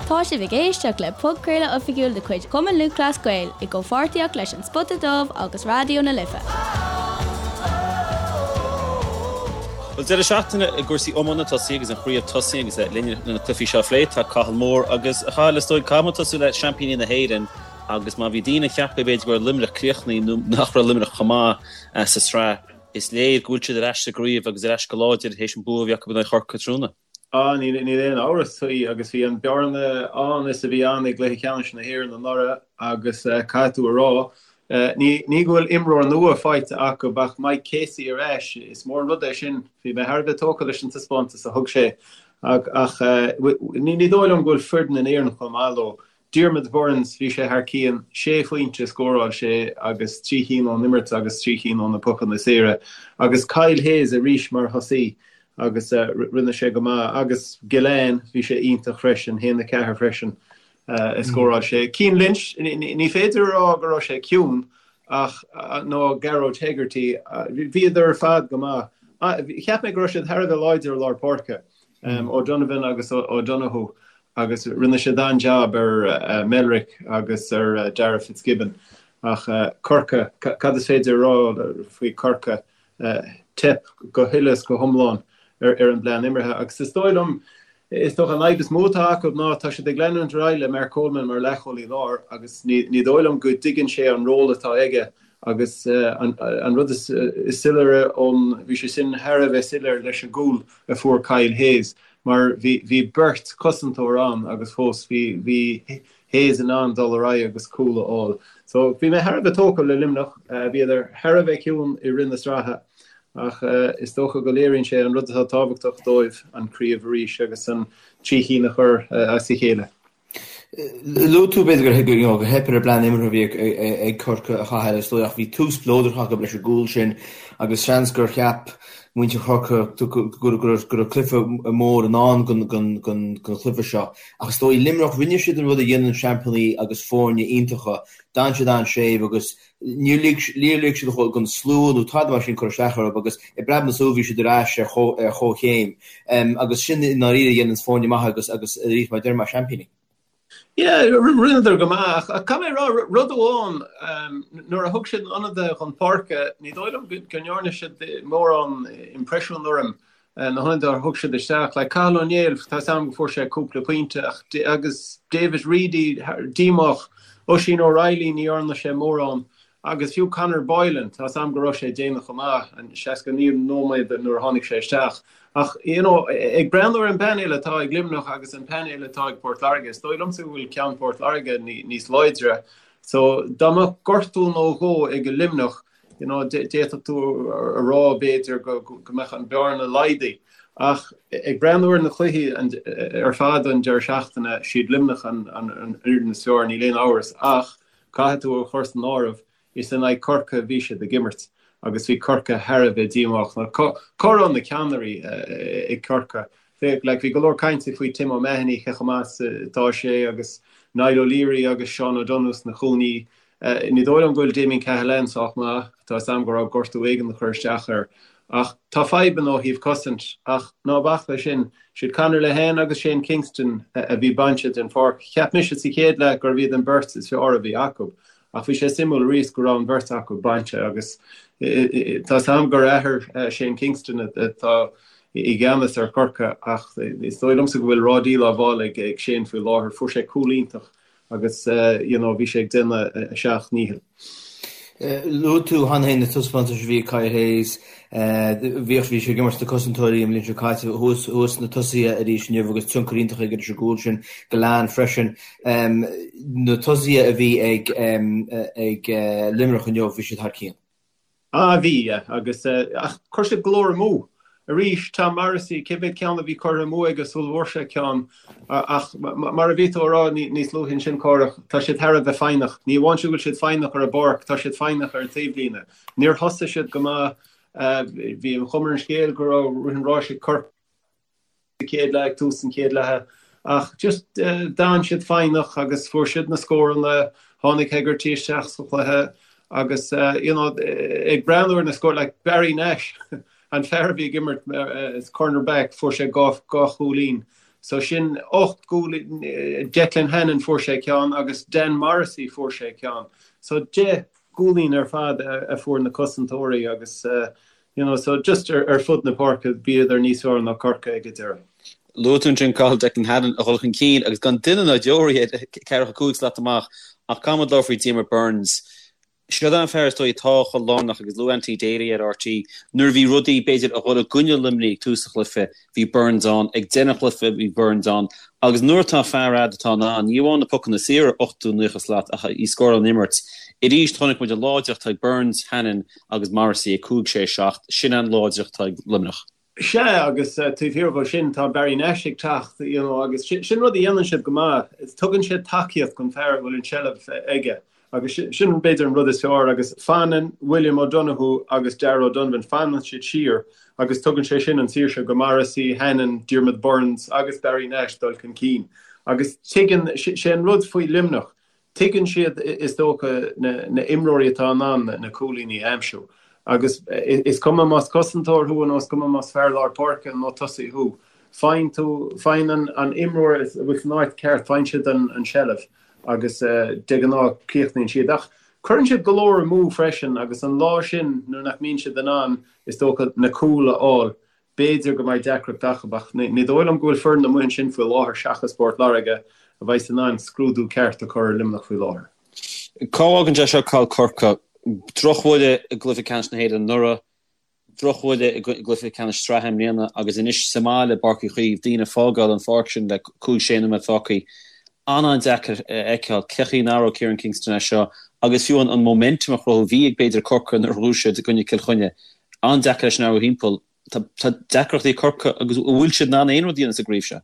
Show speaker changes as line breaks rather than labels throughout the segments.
Tá sibh ag éisteacht le podchraoladh oifigiúil de chuid Chumann Lúthchleas Gael i gcomhpháirtíocht leis An Spota Dubh agus Raidió na Life.
Bhuel, deireadh seachtaine i gcúrsaí iomána tosaithe agus an chraobh tosaithe agus linn le na cluichí seo a phlé tá Cathal Moore agus a Chathail is dóigh caithfidh muid tosú le seaimpíní na hÉireann agus má bhí daoine ag ceapadh b'fhéidir go raibh Luimneach críochnaithe nó nach raibh Luimneach chomh maith sa tsraith, is léir go bhfuil siad ar ais sa gcraobh agus ar ais go láidir théis an bua a bhí acu in aghaidh Chorcaí tráthnóna.
Á, níl aon amhras faoi agus bhí an bearna ann is a bhí ann i gcluiche ceannais na hÉireann anuraidh agus caithfidh tú a rá, ní go bhfuil imreoir nua faighte acu ach Mike Casey ar ais, is mór an rud é sin. Bhí mé thar a bheith tógtha leis an taispeántas a thug sé ach ní dóigh liom go bhfuil foireann in Éirinn chomh maith leo. Diarmaid Byrnes, bhí sé thar cionn, sé phointe a scóráil sé agus 3 chinn ón imirt agus 3 chinn ó na pocanna saora. Agus Kyle Hayes arís mar thosaí agus rinne sé go maith. Agus Gillane, bhí sé iontach freisin, 1-4 freisin a scóráil sé. Cian Lynch, ní féidir a rá go raibh sé ciúin ach, nó Gearóid Hegarty, bhíodar ar fad go maith. Cheap mé go raibh siad thar a bheith láidir i lár páirce, O'Donovan agus O'Donoghue. agus rinne siad an-jab ar Melrick agus ar Darragh Fitzgibbon. Ach Corcaigh, cad is féidir a rá faoi Corcaigh? Teip go huile is go hiomlán ar an bplean imeartha agus is dóigh liom, is dócha an fhadhb is mó atá acu ná tá siad ag leanúint ar aghaidh le Mark Coleman mar leathchúlaí láir agus ní dóigh liom go dtuigeann sé an ról atá aige agus an rud is soiléire ón, bhí sé sin thar a bheith soiléir leis an gcúl a fuair Kyle Hayes. mar bhí bhí beirt cosantóir ann agus fós bhí bhí Hayes in ann dul ar aghaidh agus cúl a fháil. So bhí mé thar a bheith tógtha le Luimneach, bhíodar thar a bheith ciúin i rith na sraithe ach is dócha go léiríonn sé an rud atá tábhachtach dóibh, an craobh arís agus an trí chinn a chur as a chéile.
Luaigh tú, b'fhéidir, gur theip ar an bplean imeartha a bhí ag Corcaigh a Chathail, is dóigh, ach bhí tús spleodrach acu leis an gcúl sin agus seans gur cheap muintir Chorcaí go raibh cluiche mór i ndán don chluiche seo. Ach is dóigh, Luimneach, rinne siad an rud a dhéanann seaimpíní agus foirne iontacha, d'fhan siad an-séimh agus Níor lig siad don slua nó tada mar sin cur isteach orthu agus i bpreab na súl bhí siad ar ais ar chomhchéim agus sin i ndáiríre a dhéananns foirne maithe agus agus arís mar a deirim seaimpíní.
Yeah, rinneadar go maith ach caithfidh mé a rá rud amháin, nuair a thug siad na hionadaithe chun páirce, ní dóigh liom go ndearna siad mórán impreisiún orm na hionadaithe a thug siad isteach, like Cathal Ó Néill, tá 's a'm go fuair sé cúpla pointe ach agus David Reidy díomách, Oisín O'Reilly ní dhearna sé mórán agus fiú Conor Boylan, tá 's a'm go raibh sé déanach chomh maith, an 69 nóiméad nuair a tháinig sé isteach. Ach you know ag breathnú ar an bpainéal atá ag Luimneach agus an painéal atá ag Port Láirge, is dóigh liomsa go bhfuil ceann Port Láirge níos láidre. So dá mbeadh gortú nó dhó ag Luimneach, you know, d'fhéadfadh tú a rá b'fhéidir go mbeadh an bearna laghdaithe. Ach ag breathnú ar na cluichí ar fad an deireadh seachtaine, siad Luimneach an fhoireann is fearr, níl aon amhras. Ach caithfidh tú a chur san áireamh, is in aghaidh Corcaigh a bhí siad ag imirt agus bhí Corcaigh thar a bheith díomách. Cá raibh na ceannairí ag Corcaigh? Like, bhí go leor cainte faoi Tim O'Mahony, cé chomh maith is atá sé, agus Niall O'Leary agus Seán O'Donoghue sna cúinní. Ní dóigh liom go bhfuil Damien Cahalane sách maith, tá 'fhios a'm go raibh gortú éigin ag cur isteach air. Ach tá fadhbanna ó thaobh cosaint, ach ná bac leis sin, siad Conor Lehane agus Shane Kingston a bhí bainte den pháirc. Cheap mise sa chéad leath gurbh iad an bheirt is fearr a bhí acu, ach bhí sé suimiúil arís go raibh an bheirt acu bainte agus tá 'fhios a'm gur athair Shane Kingston atá i gceannas ar Chorcaigh ach is dóigh liomsa go bhfuil ráidíl á bhfáil ag Shane faoi láthair. Fuair sé cúl iontach agus you know bhí sé ag déanamh a sheacht ndícheall.
Luaigh tú cheana féin na taispeántais a bhí ag Kyle Hayes. Bhíodh, bhí sé ag imirt sna cosantóirí an bhliain seo caite, thuas, thuas sna tosaithe arís inniu agus tionchar iontach aige leis an gcúl sin, Gillane freisin. Na tosaithe a bhí ag, ag Luimneach inniu, bhí siad thar cionn.
Ah bhí, yeah, agus ach chuir siad go leor amú. Arís, Tom Morrissey, cé mhéad ceann a bhí curtha amú aige sula bhfuair sé ceann? Ach mar a bhí tú a rá níos luaithe ansin, Cárthach, tá siad thar a bheith foighneach. Ní amháin sin go bhfuil siad foighneach ar an bpáirc, tá siad foighneach ar an taobhlíne. Níor thosaigh siad go maith. Bhí an chuma ar an scéal go raibh rith an ráis ag Corcaigh. sa chéad leath, ag tús an chéad leatha ach just d'fhan siad foighneach agus fuair siad na scóranna, tháinig Hegarty isteach sa chluiche agus you know ag breathnú ar na scóir like Barry Nash an fear a bhí ag imirt as corner back fuair sé dhá chúilín. So sin 8 gcúilín, Declan Hannon fuair sé ceann agus Dan Morrissey fuair sé ceann. So 10 gcúilín ar fad a fuair na cosantóirí agus you know so just ar fud na páirce bhíodar níos fearr ná Corcaigh ag an deireadh.
Luaigh tú ansin Cathal Declan Hannon a dhul chun cinn agus gan duine ná deoraí air ceathracha cúig slat amach ach caithfidh muid labhairt faoi Diarmaid Byrnes. Seo é an fear is dóigh atá chomh lárnach agus luaigh Anthony Daly ar RTÉ nuair a bhí rudaí b'fhéidir a dhul i gcoinne Luimnigh ag tús an chluiche bhí Byrnes ann, ag deireadh an chluiche bhí Byrnes ann agus nuair atá fear a'd atá in ann, ní amháin na pocanna saora 80, 90 slat ach í scóráil ón imirt. Arís chonaic muid an láidreacht atá ag Byrnes, Hannon agus Morrissey ag 5, 6, 7, sin an láidreacht atá ag Luimneach.
Sea, agus taobh thiar dhó sin tá Barry Nash ag teacht, you know, agus sin rud a dhéanann siad go maith, tugann siad tacaíocht don fear a bhfuil an tseilbh aige agus sin b'fhéidir an rud is fearr agus fanann William O'Donoghue agus Darragh O'Donovan, fanann siad siar agus tugann sé sin an saoirse go Morrissey, Hannon, Diarmaid Byrnes agus Barry Nash dul chun cinn agus tuigeann, sé an rud faoi Luimneach, Tuigeann siad, is dócha, na imreoirí atá in ann na cúilíní a aimsiú. Agus is cuma más cosantóir thú nó is cuma más fear lár páirce nó tosaí thú, faigheann tú, faigheann an imreoir a bhfuil san áit ceart, faigheann siad an tseilbh agus de ghnáth críochnaíonn siad. Ach cuireann siad go leor amú freisin agus an lá sin nuair nach mbíonn siad in ann, is dócha, na cúil a fháil, B'fhéidir go mbeidh deacracht acu, ach ní dóigh liom go bhfuil foireann amuigh ansin faoi láthair seachas Port Láirge a bheas in ann scrúdú ceart a chur ar Luimneach faoi láthair.
Cá bhfágann sé seo Cathal Corcaigh? Drochbhuille i gcluiche ceannais na hÉireann anuraidh, drochbhuille i gcluiche ceannais sraithe i mbliana agus anois sa mbaile i bPáirc Uí Chaoimh, daoine ag fágáil an pháirc sin le cúig, sé nóiméad fágtha. An-an-deacair a fheiceáil cén chaoi a n-athródh Kieran Kingston é seo agus fiú an momentum a chruthú a bhí ag b'fhéidir Corcaigh nuair a ghnóthaigh siad i gcoinne Cill Chainnigh. An-deacair é sin a athrú thimpeall. Tá deacrachtaí ag Corcaigh agus an bhfuil siad in ann aon rud a dhéanamh sa gcraobh seo?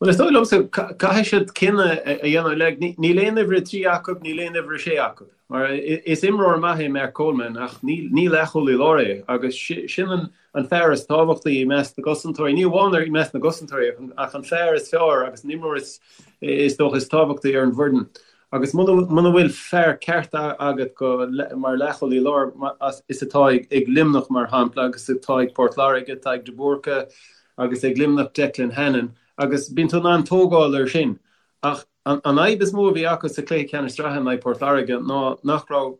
Bhuel, is dóigh liomsa, caithfidh siad cinneadh a dhéanamh. Like, níl aon uimhir 3 acu, níl aon uimhir 6 acu. Mar is imreoir maith é Mark Coleman ach ní leathchúlaí láir é agus sin an fear is tábhachtaí i measc na gcosantóirí, ní amháin i measc na gcosantóirí ach an fear is fearr agus an imreoir is dócha is tábhachtaí ar an bhfoireann. Agus muna bhfuil fear ceart agat go mar leathchúlaí láir, is atá ag Luimneach mar shampla agus atá ag Port Láirge, atá ag De Búrca agus ag Luimneach Declan Hannon, agus bíonn tú in ann tógáil air sin. Ach an fhadhb is mó a bhí acu sa chluiche ceannais sraithe in aghaidh Port Láirge ná nach raibh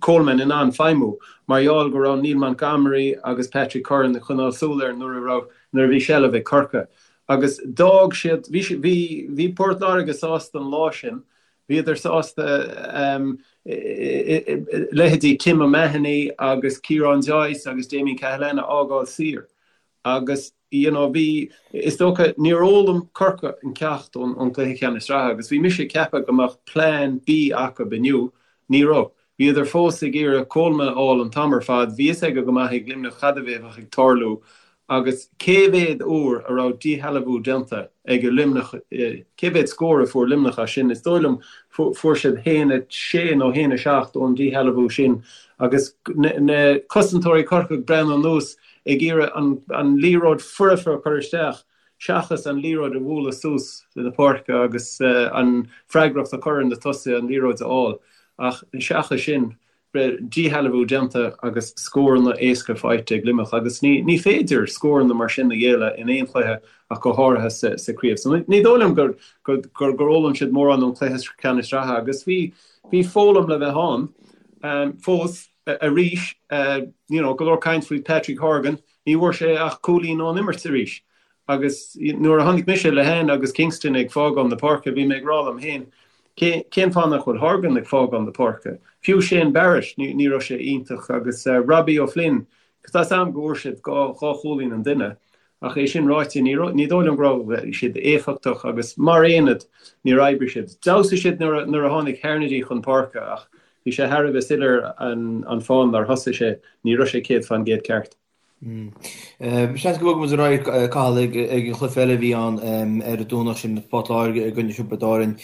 Coleman in ann feidhmiú mar gheall go raibh Neil Montgomery agus Patrick Curran ag coinneáil súil air nuair a raibh nuair a bhí seilbh ag Corcaigh. Agus d'fhág siad, bhí, bhí, bhí Port Láirge sásta an lá sin, bhíodar sásta leithéidí Tim O'Mahony agus Ciarán Joyce agus Damien Cahalane a fhágáil saor. Agus, you know, bhí, is dócha, níor fhoghlaim Corcaigh an ceacht ón, ón gcluiche ceannais sraithe agus bhí mise ag ceapadh go mbeadh plean B acu inniu, ní raibh. Bhíodar fós ag iarraidh Coleman a fháil an t-am ar fad, bhí fhios aige go maith ag Luimneach cad a bheadh ag tarlú agus cé mhéad uair a raibh díshealbhú déanta ag Luimneach, cé mhéad scór a fuair Luimneach as sin? Is dóigh liom fuair siad 1-6 nó 1-7 ón díshealbhú sin agus na cosantóirí Corcaigh ag breathnú anuas ag iarraidh an liathróid foirfe a chur isteach. seachas an liathróid a bhualadh suas na páirce agus an freagracht a chur ar na tosaithe an liathróid a fháil. Ach seachas sin, díshealbhú déanta agus scóranna éasca faighte ag Luimneach agus ní féidir scóranna mar sin a ghéilleadh in aon chluiche ach go háirithe sa chraobh. So ní dóigh liom gur fhoghlaim siad mórán ón chluiche ceannais sraithe agus bhí foghlaim le bheith ann fós arís. You know, go leor caint faoi Patrick Horgan, Ní bhfuair sé ach cúilín ón imirt arís agus nuair a chonaic mise Lehane agus Kingston ag fágáil na páirce bhí mé ag rá liom féin, cén fáth nach bhfuil Horgan ag fágáil na páirce? Fiú Shane Barrett, ní raibh sé iontach agus Robbie O'Flynn, tá 's a'm go bhfuair siad dhá chúilín an duine ach é sin ráite ní dóigh liom go raibh siad éifeachtach agus mar aonad níor oibrigh siad. D'fheabhsaigh siad nuair a tháinig Harnedy chun páirce ach Bhí sé thar a bheith soiléir an fáth nár thosaigh sé, ní raibh sé 100% ceart.
Seans go mbogfaidh muid ar aghaidh, Cathal, ag an chluiche eile a bhí ann ar an Domhnach sin, Port Láirge i gcoinne Thiobraid Árann.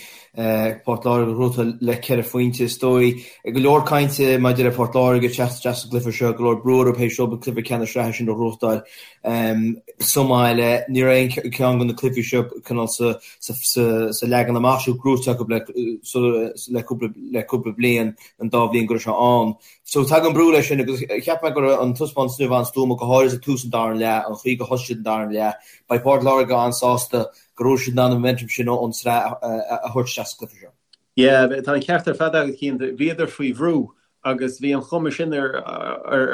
Port Láirge a ghnóthaigh le ceithre phointe is dóigh. Go leor cainte maidir le Port Láirge ag teacht isteach sa gcluiche seo, go leor brú orthu théis dóibh an cluiche ceannais sraithe sin a ghnóthachtáil sa mbaile. Ní raibh aon cheann de na cluichí seo cineál sa sa leagan amach seo gnóite acu le cúpla bliain, an dá bhliain go raibh sé ann. So tagann brú leis sin agus cheap mé go raibh an taispeántas inniu an-stuama go. go háirithe tús an dara leath, an chaoi gur thosaigh siad an dara leath. Beidh Port Láirge an-sásta go raibh siad in ann an momentum sin ón tsraith a thabhairt isteach sa gcluiche seo.
Yeah, tá an ceart ar fad agat, Cian. Bhíodar faoi bhrú agus bhí an chuma sin ar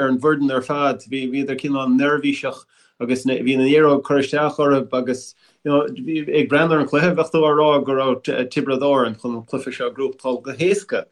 an bhfoireann ar fad. Bhíodar cineál neirbhíseach agus bhí an liathróid ag cur isteach orthu agus you know, ag breathnú ar an chluiche, bheadh tú á rá go raibh Tiobraid Árann chun an cluiche seo a ghnóthachtáil go héasca.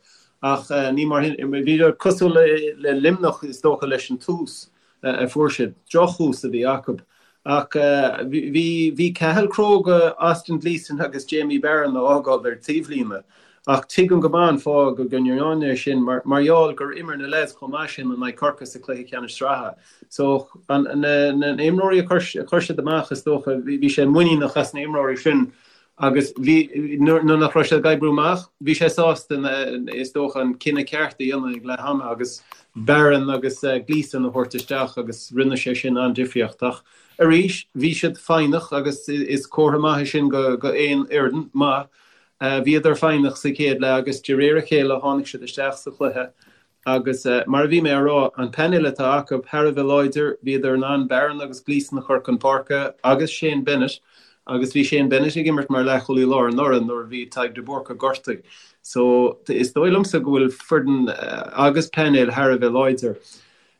Ach ní mar sin, bhíodar cosúil le Luimneach is dócha leis an tús a fuair siad. Drochthús a bhí acu. Ach bhí bhí Cathal cróga Austin Gleeson agus Jamie Barron a fhágáil ar taobhlíne. Ach tuigim go maith an fáth go ndearna é sin mar mar gheall gur imir na leaids chomh maith sin in aghaidh Corcaigh sa chluiche ceannais sraithe. So an na na imreoirí a chuir a chuir siad amach is dócha bhí sé muiníneach as na imreoirí sin Agus bhí, nuair nach raibh sé ag oibriú amach, bhí sé sásta, is dócha, an cinneadh ceart a dhéanamh ag leath ama agus Barron agus Gleeson a thabhairt isteach agus rinne sé sin an-difríocht. Ach arís, bhí siad foighneach agus is comhartha maith é sin go aon fhoireann maith. Bhíodar foighneach sa chéad leath agus de réir a chéile tháinig siad isteach sa chluiche Agus mar a bhí mé a rá, an painéal atá acu thar a bheith láidir, bhíodar in ann Barron agus Gleeson a chur chun páirce agus Shane Bennett, agus bhí Shane Bennett ag imirt mar leathchúlaí láir anuraidh nuair a bhí Tadhg de Búrca gortaithe. So is dóigh liomsa go bhfuil foireann agus painéal thar a bheith láidir.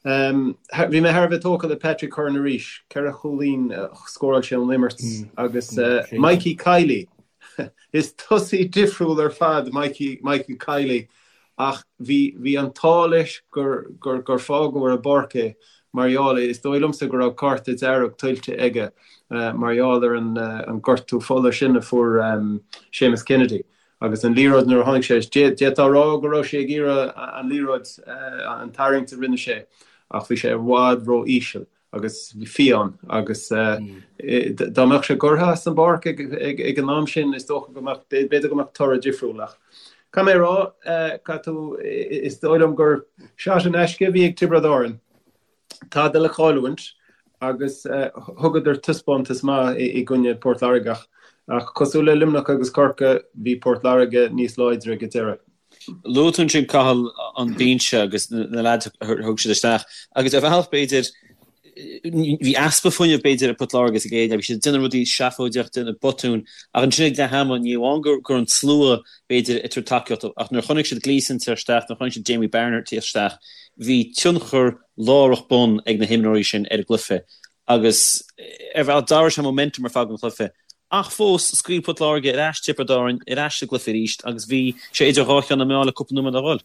Bhí mé thar a bheith tógtha le Patrick Curran arís, 4 chúilín a scóráil sé ón imirt agus Mikey Kiely, is tosaí difriúil ar fad Mikey Michael Kiely Ach bhí, bhí an t-ádh leis gur, gur, gur fágadh ar an bpáirc é mar gheall, is dóigh liomsa go raibh cárta dearg tuillte aige mar gheall ar an, an gortú fola sin a fuair Séamus Kennedy. Agus an liathróid nuair a tháinig sé, d'fhéadfá a rá go raibh sé ag iarraidh an liathróid, an tarraingt a rinne sé ach bhí sé i bhfad ró-íseal. agus fiáin agus dá mbeadh sé gortaithe as an bpáirc ag an am sin is dócha go mbeadh, b'fhéidir go mbeadh toradh difriúil ach caithfidh mé a rá, caithfidh tú, is dóigh liom gur shot in aisce a bhí ag Tiobraid Árann, tada le cailliúint agus thugadar taispeántas maith i gcoinne Port Láirge ach cosúil le Luimneach agus Corcaigh bhí Port Láirge níos láidre ag an deireadh.
Luaigh tú ansin, Cathal, an binse agus na leaids a thug siad isteach agus ar bhealach b'fhéidir bhí easpa fuinnimh b'fhéidir ag Port Láirge sa gcéad leath, bhí siad ag déanamh rudaí seafóideach, déanamh botúin ach ansin ag leath ama ní amháin go raibh an slua b'fhéidir ag tabhairt tacaíocht ach nuair a chonaic siad Gleeson ag teacht isteach, nuair a chonaic siad Jamie Barron ag teacht isteach, bhí tionchar láithreach bonn ag na himreoirí sin ar an gcluiche agus ar bhealach d'athraigh sé momentum ar fad an chluiche. Ach fós, scaoil Port Láirge ar ais Tiobraid Árann ar ais sa gcluiche arís agus bhí sé idir dhá cheann na meá le cúpla nóiméad a dhul.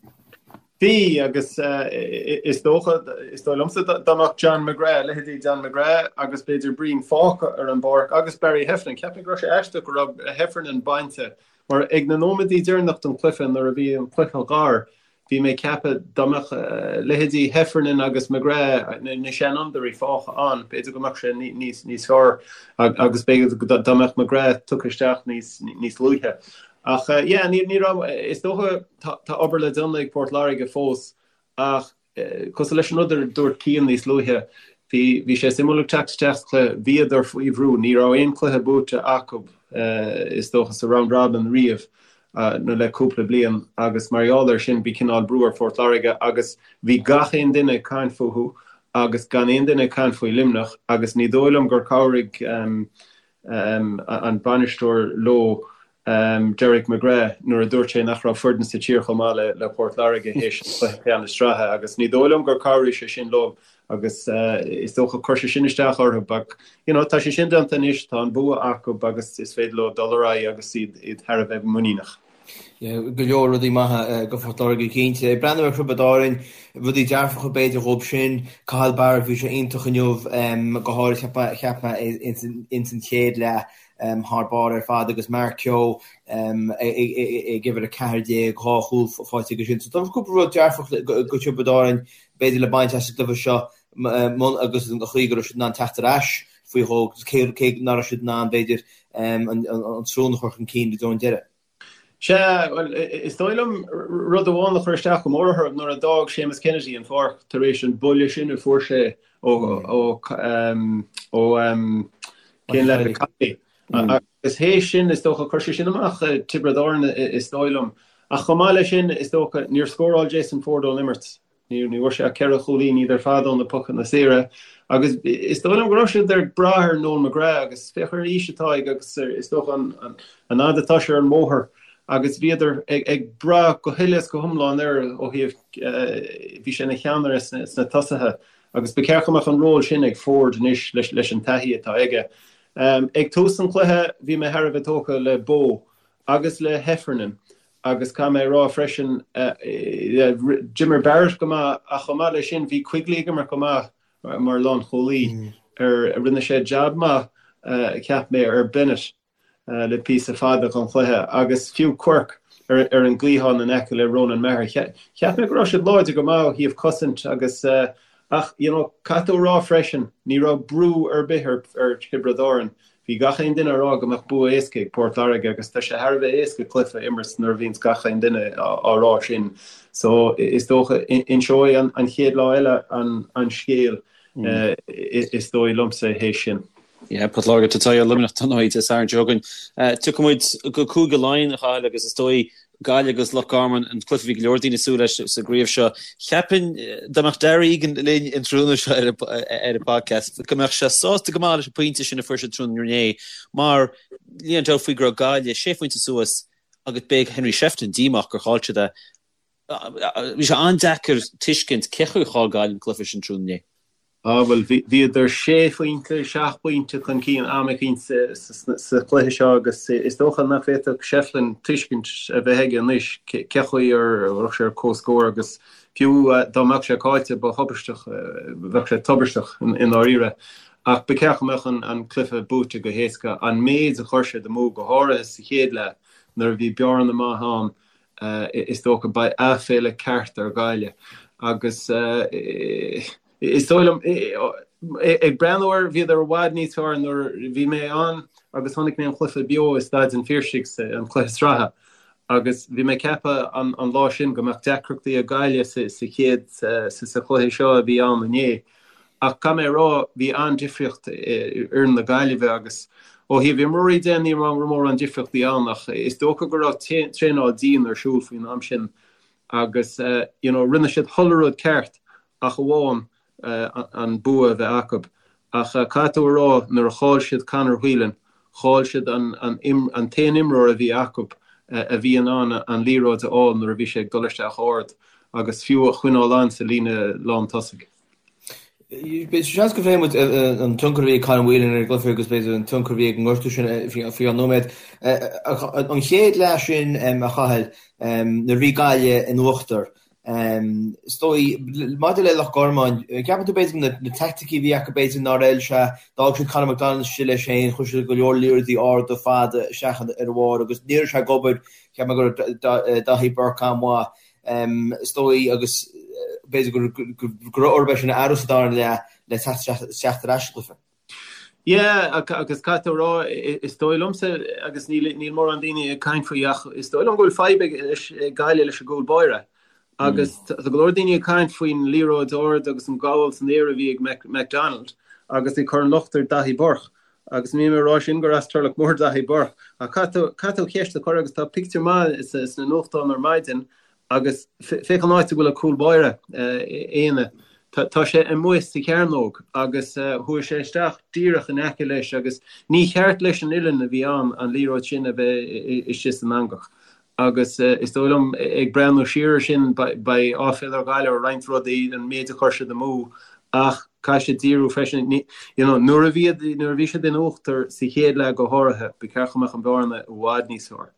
Bhí, agus is dócha, is dóigh liomsa, dá mbeadh John McGrath, leithéidí John McGrath agus b'fhéidir Breen fágtha ar an bpáirc agus Barry Heffernan, cheap mé go raibh sé aisteach go raibh Heffernan bainte mar ag na nóiméadaí deireanach den chluiche nuair a bhí an cluiche gar, Bhí mé ag ceapadh dá mbeadh leithéidí Heffernan agus McGrath, na seanfhondúirí, fágtha ann, b'fhéidir go mbeadh sé níos fearr agus b'fhéidir dá mbeadh McGrath tugtha isteach níos luaithe. Ach yeah, ní raibh, is dócha tá obair le déanamh ag Port Láirge fós ach cosúil leis an rud a dúirt Cian níos luaithe, bhí sé suimiúil ag teacht isteach sa chluiche, bhíodar faoi bhrú, ní raibh aon chluiche buaite acu is dócha sa round robin riamh. nó le cúpla bliain agus mar gheall air sin bhí cineál brú ar Phort Láirge agus bhí gach aon duine ag caint fúthu agus gan aon duine ag caint faoi Luimneach agus ní dóigh liom gur chabhraigh an bainisteoir leo Derek McGrath nuair a dúirt sé nach raibh foireann sa tír chomh maith le Port Láirge théis an chluiche ceannais sraithe agus ní dóigh liom gur chabhraigh sé sin leo agus is dócha chuir sé sin isteach orthu but you know tá sé sin déanta anois, tá an bua acu agus is féidir leo dul ar aghaidh agus iad iad thar a bheith muiníneach.
Yeah, go leor rudaí maithe go Phort Láirge cinnte. Ag breathnú ar Thiobraid Árainn, rudaí dearfacha b'fhéidir dhóibh sin, Cathal Barrett, bhí sé iontach inniu, go háirid cheap mé ins an chéad leath thar barr ar fad agus Mark Kehoe ag uimhir 14, dhá chúl faighte aige sin. So tá cúpla rud dearfach go Tiobraid Árainn b'fhéidir le baint as an gcluiche seo agus an chaoi go raibh siad in ann teacht ar ais faoi dhó agus cé nach raibh siad in ann, b'fhéidir, an srón a chur chun cinn go dtí an deireadh.
Sea, bhuel, is dóigh liom rud amháin a chuir isteach go mór orthu nuair a d'fhág Séamus Kennedy an pháirc tar éis an buille sin a fuair sé ó ó cén leaid Kiely. Agus théis sin, is dócha, chuir sé sin amach Tiobraid Árann, is dóigh liom. Ach chomh maith leis sin, is dócha, níor scóráil Jason Forde ón imirt. Ní bhfuair sé ach 4 chúilín, iad ar fad ó na pocanna saora. Agus is dóigh liom go raibh siad ag brath ar Noel McGrath agus féach ar an aois atá aige agus is dócha an fhad atá sé ar an mbóthar agus bhíodar ag brath go huile is go hiomlán air ó thaobh, bhí sé ina cheannaire sna tosaithe agus ba cheart go mbeadh an ról sin ag Forde anois leis an taithí atá aige. Ag tús an chluiche bhí mé thar a bheith tógtha le Bowe agus le Heffernan agus caithfidh mé a rá freisin, d'imir Barrett go maith ach chomh maith leis sin bhí Quigley ag imirt go maith mar lánchúlaí. Rinne sé jab maith cheap mé ar Bennett le píosa fada den chluiche agus fiú Quirke ar an gcliathán in aice le Ronan Maher. Cheap mé go raibh siad láidir go maith ó thaobh cosaint agus ach you know caithfidh tú a rá freisin ní raibh brú ar bith ar Thiobraid Árann. Bhí gach aon duine ag rá go mbeadh bua éasca ag Port Láirge agus tá sé thar a bheith éasca cluiche a imirt nuair a bhíonns gach aon duine á rá sin. So is dócha inseoidh an chéad lá eile an scéal is dóigh liomsa théis sin.
Yeah, Port Láirge tá ar Luimneach don oíche Dé Sathairn seo chugainn. Tiocfaidh muid go Cúige Laighean, a Chathail, agus is dóigh Gaillimh agus Loch Garman, an cluiche a bhí go leor daoine ag súil leis sa gcraobh seo. Cheapfainn dá mbeadh Darragh Egan linn an tráthnóna seo ar an podcast, go mbeadh sé sásta go maith leis an pointe sin a fuair siad tráthnóna inné, mar níl aon dabht faoi go raibh Gaillimh sé phointe suas agus beidh Henry Shefflin díomách gur chaill siad é. Bhí sé an-deacair tuiscint cé chaoi a chaill Gaillimh an cluiche sin tráthnóna inné.
Á, bhuel, bhíodar sé phointe, seacht bpointe chun cinn am eicínt sa chluiche seo agus is dócha nach bhféadfadh Shefflin tuiscint a bheith aige anois cé chaoi ar raibh sé ar comhscór agus fiú dá mbeadh sé caillte ba thubaisteach, bheadh sé tubaisteach i ndáiríre. Ach ba cheart go mbeadh an cluiche buaite go héasca. An méid a chuir siad amú, go háirithe sa chéad leath nuair a bhí bearna maith ann, is dócha, beidh aiféala ceart ar Ghaillimh agus. Is dóigh liom, ag breathnú air, bhíodar i bhfad níos fearr nuair a bhí mé ann agus chonaic mé an cluiche beo i Staid an Phiarsaigh, an cluiche sraithe, agus bhí mé ag ceapadh an lá sin go mbeadh deacrachtaí ag Gaillimh sa chéad, sa chluiche seo a bhí ann inné. Ach caithfidh mé a rá, bhí an-difríocht i bhfoireann na Gaillimhe agus ó thaobh imreoirí de, ní raibh mórán difríochtaí ann ach is dócha go raibh traenáil dian ar siúl faoin am sin agus you know rinne siad chuile rud ceart ach amháin an bua a bheith acu. Ach caithfidh tú a rá, nuair a chaill siad Conor Whelan, chaill siad an t-aon imreoir a bhí acu a bhí in ann an liathróid a fháil nuair a bhí sé ag dul isteach ard agus fiú a choinneáil ann sa líne lán tosaigh.
Seans go bhféadfaidh muid an tionchar a bhí ag Conor Whelan ar an gcluiche agus b'fhéidir an tionchar a bhí ag an ngortú sin faoi cheann nóiméad. An chéad leath sin, a Chathail, nuair a bhí Gaillimh in uachtar, Is dóigh, maidir le Loch Garman, ceapann tú b'fhéidir na teaicticí a bhí acu b'fhéidir nár fheil sé, d'fhág siad Conor McDonald istigh leis féin, chuir siad go leor liathróidí arda fada isteach ar a bharr agus ní raibh sé ag obair, cheap mé go raibh Daithí Burke an-mhaith, is dóigh, agus b'fhéidir go raibh orthu é sin a athrú sa dara leath le teacht ar ais sa gcluiche.
Yeah, agus caithfidh tú a rá, is dóigh liomsa, agus níl níl mórán daoine ag caint faoi ach is dóigh liom go bhfuil fadhb ag leis ag Gaillimh leis an gcúl báire. Agus tá go leor daoine ag caint faoin liathróid ard agus an gabháil san aer a bhí ag McDonald agus ag cur an locht ar Daithí Burke. Agus níl mé ag rá sin gur as Turloch Mór Daithí Burke ach caithfidh tú caithfidh tú ceist a chur agus tá pictiúr maith sna nuachtáin ar maidin Agus féach an áit a bhfuil an cúl báire, Éanna. Tá sé amuigh sa chearnóg agus chuaigh sé isteach díreach in aice leis agus ní cheart leis an uillinn a bhí ann an liathróid sin a bheith istigh san eangach. Agus is dóigh liom, ag breathnú siar ar sin, beidh áiféala ar Ghaillimh ar roinnt rudaí, an méid a chuir siad amú ach caithfidh siad díriú freisin. You know, nuair a bhí nuair a bhí siad in uachtar sa chéad leath go háirithe, ba cheart go mbeadh an bhearna i bhfad níos fearr.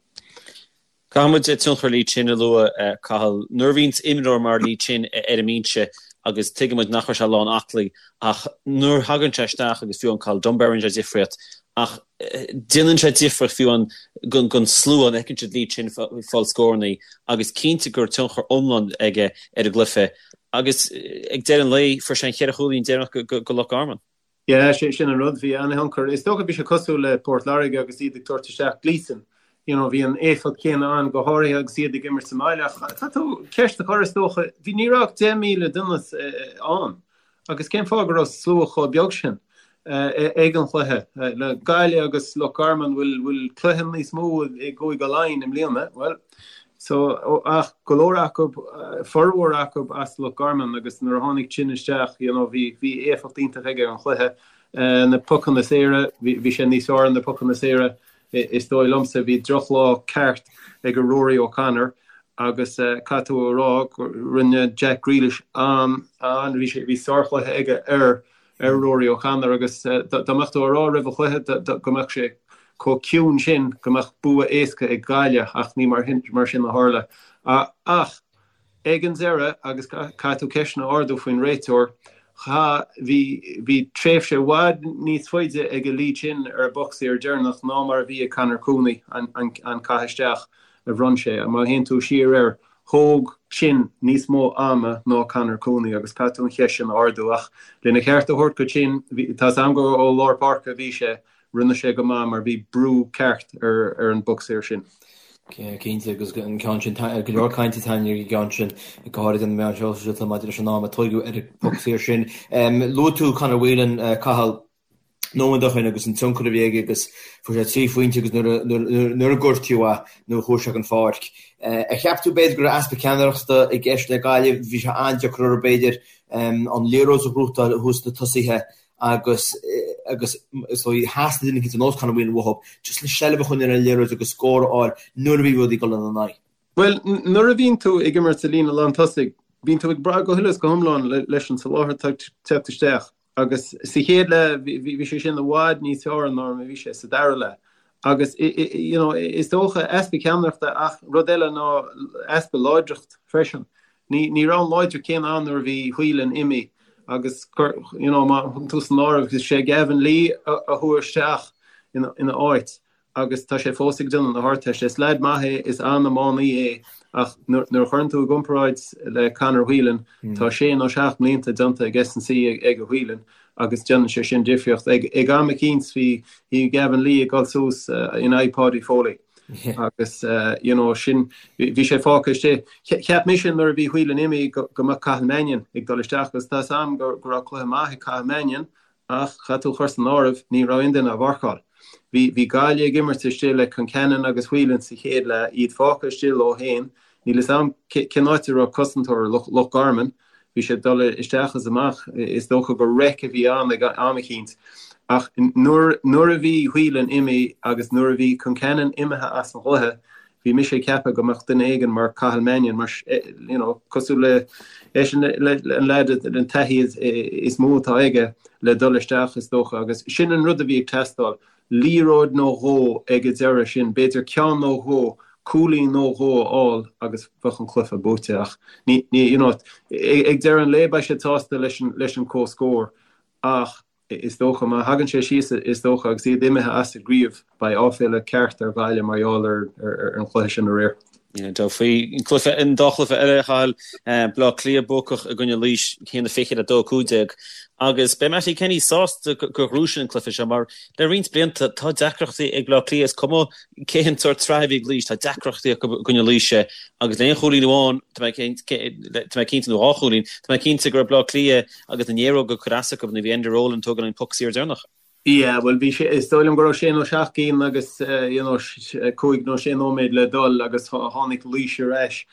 Caithfidh muid tionchar Lee Chin a lua, Cathal. Nuair a bhíonns imreoir mar Lee Chin ar an mbinse, agus tuigeann muid nach raibh sé lán aclaí, ach nuair a thagann sé isteach agus fiú amháin Cathal Dunbar rinne sé difríocht, ach déanann sé difríocht fiú amháin don slua nuair a fheiceann siad Lee Chin ag fáil scórannaí agus cinnte go raibh tionchar iomlán aige ar an gcluiche. Agus ag deireadh an lae, fuair sé an cheithre chúilín deireanach go Loch Garman.
Yeah, sin an rud, bhí an-thionchar. Is dócha bhí sé cosúil le Port Láirge agus iad ag tabhairt isteach Gleeson. You know, bhí an éifeacht chéanna ann, go háirithe agus iad ag imirt sa mbaile. Ach tá tú ceist a chur, is dócha, bhí, ní raibh ach 10,000 duine ann. Agus cén fáth go raibh slua chomh beag sin ag an chluiche? Le Gaillimh agus Loch Garman, bhfuil, bhfuil cluiche níos mó i gCúige Laighean i mbliana? Bhuel, So, ach go leor acu, formhór acu as Loch Garman agus nuair a tháinig Chin isteach, you know, bhí, bhí éifeacht iontach aige ar an chluiche. Na pocanna saora, bhí, bhí sé níos fearr ar na pocanna saora is dóigh liomsa. Bhí drochlá ceart ag Rory O'Connor agus caithfidh tú a rá go rinne Jack Grealish an, an, bhí sé, bhí sárchluiche aige ar, ar Rory O'Connor agus dá mbeadh tú a rá roimh an chluiche go mbeadh sé chomh ciúin sin go mbeadh bua éasca ag Gaillimh ach ní mar sin a tharla. Ach ag an deireadh, agus caithfidh tú ceisteanna a ardú faoin réiteoir, cha, bhí, bhí tréimhse i bhfad níos faide ag Lee Chin ar an bpoc saor deireanach ná mar a bhí ag Conor Cooney an caitheamh isteach a bhronn sé. Má théann tú siar air, Thóg Chin níos mó ama ná Conor Cooney agus caithfidh tú an cheist sin a ardú. Ach lena cheart a thabhairt go Chin, tá 's a'm gur ó lár páirce a bhí sé, rinne sé go maith mar bhí brú ceart ar an bpoc saor sin.
Cinnte, agus an ceann sin, go leor cainte ar an gceann sin, go háirid ar na meáin shóisialta maidir leis an am a tóigeadh ar an bpoc saor sin. Luaigh tú Conor Whelan, Cathal. nóiméad ó shin agus an tionchar a bhí aige agus fuair sé 3 phointe agus nuair a gortaíodh é nuair a chuaigh sé den pháirc. Ar cheap tú b'fhéidir go raibh easpa ceannaireachta i gceist le Gaillimh, bhí sé an-deacair orthu b'fhéidir an liathróid a ghnóthachtáil thuas sna tosaithe agus agus is dóigh theastaigh duine éicint ar nós Conor Whelan uathu just le seilbh a choinneáil ar an liathróid agus scór a fháil nuair a bhí rudaí ag dul ina n-aghaidh.
Bhuel, nuair a bhíonn tú ag imirt sa líne lántosaigh, bíonn tú ag brath go huile is go hiomlán leis an soláthar atá ag teacht isteach. Agus sa chéad leath, bhí sé sin i bhfad níos fearr ná mar a bhí sé sa dara leath. Agus, you know, is dócha easpa ceannaireachta ach rud eile ná easpa láidreacht freisin. Ní, ní raibh an láidreacht céanna ann nuair a bhí Whelan imithe agus, you know, má thugann tú san áireamh, is é Gavin Lee a chuaigh isteach ina áit. agus tá sé fós ag déanamh na hArdteiste. Is leaid maith é, is an-iománaí é ach nuair a chuireann tú i gcomparáid le Conor Whelan, tá sé nó seacht mblianta déanta ag S&C ag Whelan agus déanann sé sin difríocht. Ag am eicínt bhí bhí Gavin Lee ag dul suas in aghaidh Paudie Foley agus you know sin bhí sé fágtha istigh. Cheap mise nuair a bhí Whelan imithe go mbeadh Cathal Mannion ag dul isteach agus tá 's a'm go raibh cluiche maith ag Cathal Mannion Ach caithfidh tú a chur san áireamh, ní raibh aon duine á mharcáil. Bhí bhí Gaillimh ag imirt istigh le Concannon agus Whelan sa chéad leath, iad fágtha istigh leo féin. Níl fhios a'm cén áit a raibh cosantóir Loch Garman. Bhí sé ag dul isteach is amach. Is dócha gur raic a bhí ann ag am eicínt. Ach nuair nuair a bhí Whelan imithe agus nuair a bhí Concannon imithe as an gcluiche, Bhí mise ag ceapadh go mbeadh duine éigin mar Cathal Mannion, mar, you know, cosúil le, eisean, le, an leaid, an taithí is mó atá aige le dul isteach is dócha agus sin an rud a bhí ag teastáil, liathróid nó dhó ag an deireadh sin, b'fhéidir ceann nó dhó, cúilín nó dhó a fháil agus bheadh an cluiche buaite ach ní, ní, you know, ag deireadh an lae beidh siad sásta leis an, leis an comhscór ach Is dócha, má thagann sé síos, is dócha, agus iad imithe as an gcraobh, beidh áiféala ceart ar Ghaillimh mar gheall ar an chluiche sin aréir.
Tá faoi an cluiche, an dá chluiche eile, a Chathail, Baile Átha Cliath buacach i gcoinne Laois, 1-20 le 2-15, agus beidh Mattie Kenny sásta gur ghnóthaigh siad an cluiche seo mar le roinnt blianta tá deacrachtaí ag Baile Átha Cliath, is cuma cén sórt sraith a bhí ag Laois, tá deacrachtaí acu i gcoinne Laoise agus le haon chúilín amháin, tá mé cinnte, nó dhá chúilín, tá mé cinnte go raibh Baile Átha Cliath Agus na néaróga ag cur as acu nuair a bhí Enda Rowland ag tógáil an poc saor deireanach.
Yeah, bhuel bhí sé, is dóigh liom go raibh sé nó seacht gcinn agus you know cúig nó sé nóiméad le dul agus tháinig Laois ar ais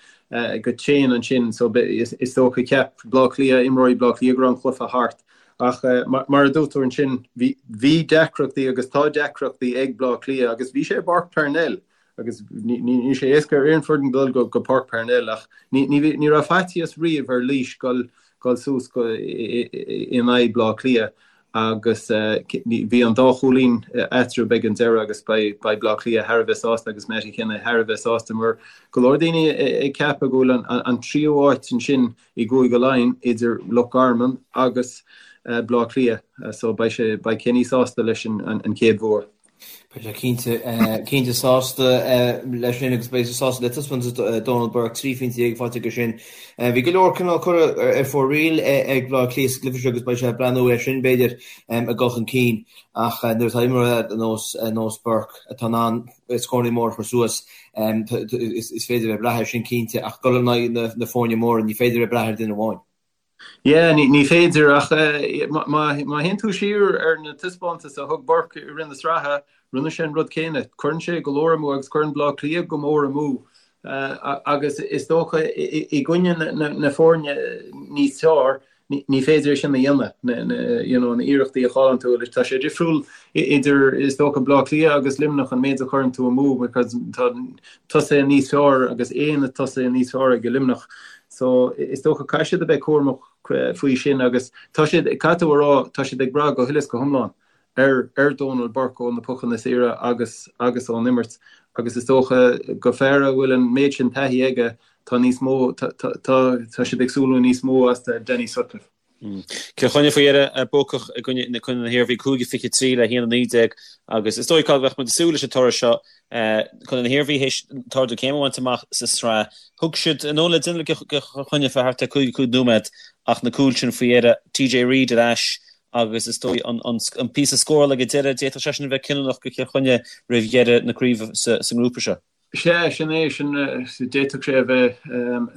go tréan ansin so is dócha cheap Bleá Cliath, imreoirí Bleá Cliath go raibh an cluiche thart. Ach mar a dúirt tú ansin bhí bhí deacrachtaí agus tá deacrachtaí ag Bleá Cliath agus bhí sé i bPáirc Parnell Agus níl sé éasca ar aon foireann dul go Páirc Parnell ach ní raibh faitíos riamh ar Laois dul suas in aghaidh Bleá Cliath agus bhí an dá chúilín eatarthu ag an deireadh agus beidh Bleá Cliath thar a bheith sásta agus Mattie Kenny thar a bheith sásta mar go leor daoine ag ceapadh go bhfuil an tríú áit ansin i gCúige Laighean idir Loch Garman agus Bleá Cliath so beidh sé beidh Kenny sásta leis an chéad bhua.
Beidh sé cinnte, cinnte sásta leis sin agus beidh sé sásta le taispeántas Donal Burke, 13 phointe faighte aige sin. Bhí go leor cineál curtha ar fóraoil ag Baile Átha Cliath sa gcluiche seo agus beidh sé ag breathnú air sin, b'fhéidir, ag dul chun cinn ach nuair atá imreoir ar nós, ar nós Burke atá in ann scóranna móra a chur suas, is féidir a bheith ag brath air sin cinnte ach dul in aghaidh na foirne móra ní féidir a bheith ag brath ar duine amháin.
Yeah, ní féidir ach má théann tú siar ar na taispeántais a thug Burke i rith na sraithe, rinne sé an rud céanna. Cuireann sé go leor amú agus cuireann Bleá Cliath go mór amú. Agus is dócha i gcoinne na foirne níos fearr, ní féidir é sin a dhéanamh, you know, na iarrachtaí a chailleann tú. Tá sé difriúil idir, is dócha, Baile Átha Cliath agus Luimneach an méid a chuireann tú amú because tá tosaithe níos fearr agus aon tosaithe níos fearr ag Luimneach. So is dócha caithfidh siad a bheith cúramach faoi sin agus tá siad, caithfidh tú a rá, tá siad ag brath go huile is go hiomlán ar ar Dónal Burke ó na pocanna saora agus agus ón imirt agus is dócha do fear a bhfuil an méid sin taithí aige tá níos mó tá tá tá siad ag súil le níos mó as Danny Sutcliffe.
Cill Chainnigh faoi dheireadh buacach i gcoinne na na hIarmhí 5-23 le 1-19 agus is dóigh go mbeadh muid ag súil leis an toradh seo. Contae na hIarmhí théis an t-ardú céime a bhaint amach sa tsraith. Thug siad an fhón le déanamh le Cill Chainnigh fé thart ar 55 nóiméad ach na cúil sin faoi dheireadh. TJ Reid ar ais agus is dóigh an píosa scórála ag an deireadh, d'fhéadfadh sé sin a bheith cinniúnach do Chill Chainnigh roimh dheireadh na craoibhe sa ngrúpa seo.
Sea, sin é, sin, d'fhéadfadh sé a bheith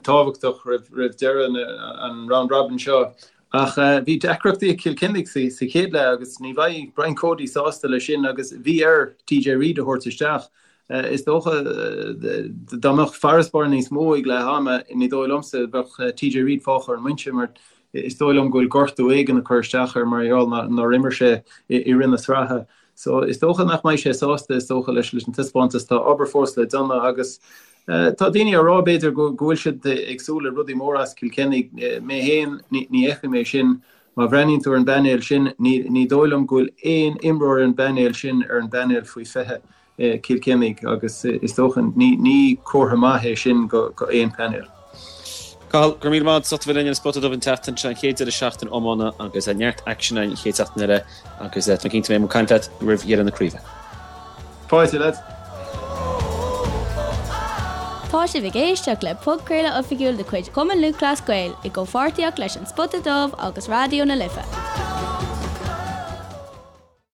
tábhachtach roimh deireadh an round robin seo. Ach bhí deacrachtaí ag Cill Chainnigh sa chéad leath agus ní bheidh Brian Cody sásta leis sin agus bhí air TJ Reid a thabhairt isteach. Is dócha dá mbeadh farasbarr níos mó ag leath ama, ní dóigh liomsa, bheadh TJ Reid fágtha ar an mbinse mar Is dóigh liom go bhfuil gortú éigin ag cur isteach air mar gheall nár imir sé i rith na sraithe. So is dócha nach mbeidh sé sásta, is dócha, leis an taispeántas. Tá obair fós le déanamh agus tá daoine á rá, b'fhéidir, go bhfuil siad ag súil le rudaí móra as Cill Chainnigh. Mé féin, ní fheicim é sin. Má bhreathnaíonn tú ar an bpainéal sin, ní dóigh liom go bhfuil aon imreoir ar an bpainéal sin ar an bpainéal faoi 20. Cill Chainnigh agus is dócha ní comhartha maith é sin go aon phainéal.
Cathal, go raibh míle maith agat as ucht a bheith linn ar an Spota Dubh an tseachtain seo, an chéad deireadh seachtaine iomána agus neart aicsin an chéad seachtain eile agus tá mé cinnte go mbeidh muid ag caint leat roimh dheireadh na craoibhe.
Fáilte, lads.
Tá sibh ag éisteacht le podchraoladh oifigiúil de chuid Chumann Lúthchleas Gael i gcomhpháirtíocht leis An Spota Dubh agus Raidió na Life.